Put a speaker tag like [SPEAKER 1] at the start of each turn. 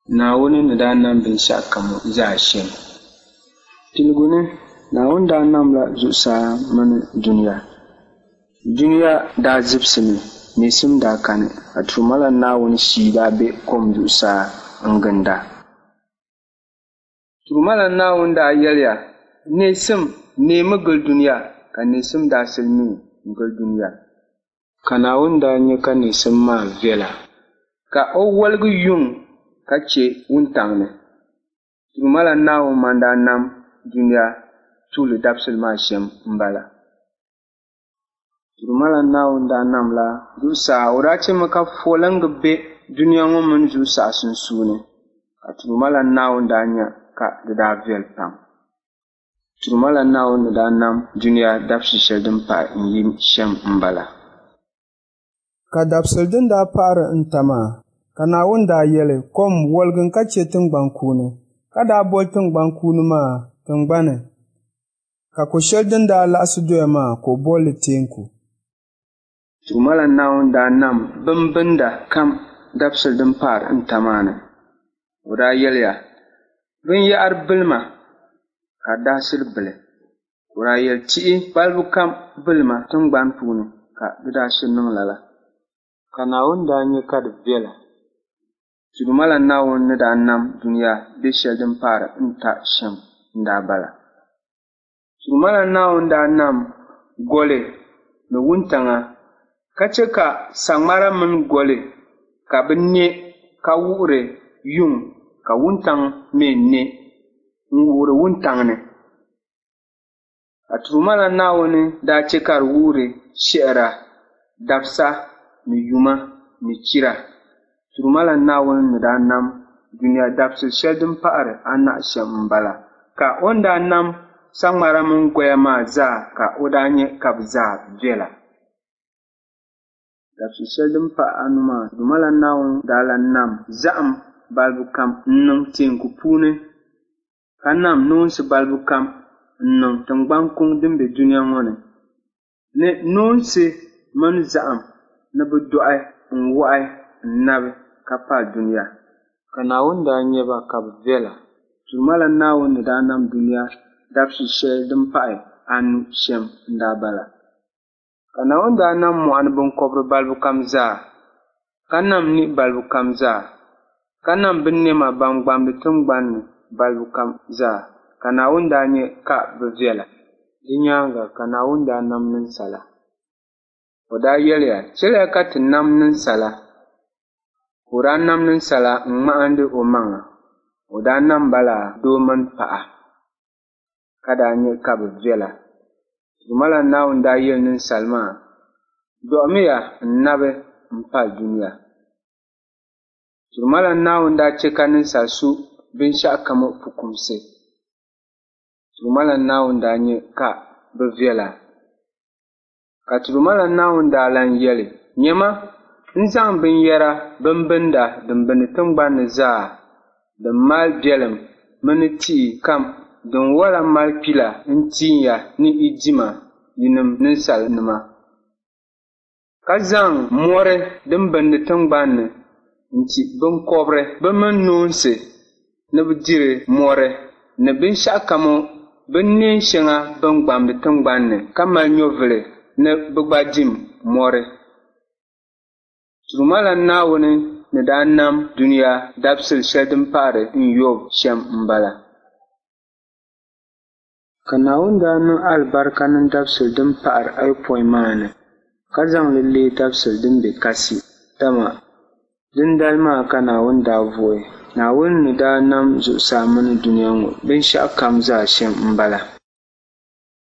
[SPEAKER 1] Naawuni ni daa nam binshɛɣukam zaa shɛm. Piligu ni, Naawuni daa namla zuɣusaa mini dunia. Dunia daa zibisimi, neesim daa kani, ka Turumalan Naawuni Shia daa be kom zuɣusaa n-ginda. Turumalan Naawuni daa yɛliya, Neesim, neemi gili dunia, ka neesim daa shili neei n-gili dunia. Ka Naawuni daa nya ka neesim maa viɛla, ka o woligi yuŋ ka chɛ wuntaŋ ni. Duumalan Naawuni man daa nam dunia tuuli dabisili maa shɛm m-bala. Duumalan Naawuni daa namla zuɣusaa, o daa chɛmi ka foliŋga be dunia ŋɔ mini zuɣusaa sunsuuni, ka Duumalan Naawuni daa nya ka di daa viɛli pam. Duumalan Naawuni ni daa nam dunia dabisi shɛli din pahi n-yi shɛm m-bala.
[SPEAKER 2] Ka dabisili din daa pahiri n-ta maa, ka Naawuni daa yɛli, Kom, woligim ka chɛ tiŋgbani kuuni. Ka daa boli tiŋgbani kuuni maa, Tiŋgbani. Ka ko shɛli din daa laɣisi doya maa, ka o boli li Teeku.
[SPEAKER 1] Duumalan Naawuni daa nam bimbinda kam dabisili din pahiri n-ta maa ni. O daa yɛliya, Binyɛhiri bilima, ka di daa shiri bili. Ka o daa yɛli, Tihi balibu kam bilima tiŋgbani puuni, ka di daa shiri niŋ lala. Ka Naawuni daa nya ka di viɛla. Duumalan Naawuni ni daa nam dunia be shɛli din pahiri n-ta shɛm n-daa bala. Duumalan Naawuni daa nam goli ni wuntaŋa, ka chɛ ka saŋmara mini goli ka bɛ ne ka wuhiri yuŋ, ka wuntaŋ mi ne n-wuhiri wuntaŋ ni. Ka Duumalan Naawuni daa chɛ ka di wuhiri shɛhira, dabisa ni yuma ni chira. Duumalan Naawuni ni daa nam dunia dabisili shɛli din pahiri anahi shɛm m-bala. Ka o ni daa nam saŋmara mini goya maa zaa ka o daa nya ka bɛ zaa viɛla. Dabisili shɛli din pahi anu maa, Duumalan Naawuni daa lan nam zahim balibu kam n-niŋ teeku puuni, ka nam noonsi balibu kam n-niŋ tiŋgban kuŋ din be dunia ŋɔ ni, ni noonsi mini zahim ni bɛ dɔɣi n-wɔɣi n-nabi ka pali dunia. Ka Naawuni daa nya ba ka bɛ viɛla. Duumalan Naawuni ni daa nam dunia dabisili shɛli din pahi anu shɛm n-daa bala. Ka Naawuni daa nam mɔɣu ni biŋkɔbiri balibu kam zaa, ka nam niɣi balibu kam zaa, ka nam binnɛma ban gbamdi tiŋgbani ni balibu kam zaa, ka Naawuni daa nya ka bɛ viɛla. Di nyaaŋa ka Naawuni daa nam ninsala. O daa yɛliya, Chɛliya ka ti nam ninsala. Ka o daa nam ninsala n-ŋmahindi omaŋa. O daa nam ba la doo mini paɣa, ka daa nya ka bɛ viɛla. Duumalan Naawuni daa yɛli ninsal maa, Dɔɣimiya n-nabi m-pali dunia. Duumalan Naawuni daa chɛ ka ninsal su binshɛɣukam fukumsi. Duumalan Naawuni daa nya ka bɛ viɛla. Ka Duumalan Naawuni daa lan yɛli, Nyama, n zaŋ binyɛra bimbinda din bindi tiŋgbani ni zaa din mali biɛlim mini tihi kam din wala mali kpila n-tin ya ni yi di ma, yinim ninsalinima. Ka zaŋ mɔri din bindi tiŋgbani ni n-ti biŋkɔbiri bɛ mini noonsi ni bɛ diri mɔri ni binshɛɣukam binneen shɛŋa bɛn gbamdi tiŋgbani ni ka mali nyɔvili ni bɛ gba dim mɔri. Duumalan Naawuni ni daa nam dunia dabisili shɛli din pahiri n-yobu shɛm m-bala. Ka Naawuni daa niŋ alibarika niŋ dabisili din pahir ayopɔin maa ni, ka zaŋ li leei dabisili din be kasi, dama dindali maa ka Naawuni daa vuhi. Naawuni ni daa nam zuɣusaa mini dunia ŋɔ binshɛɣukam zaa shɛm m-bala.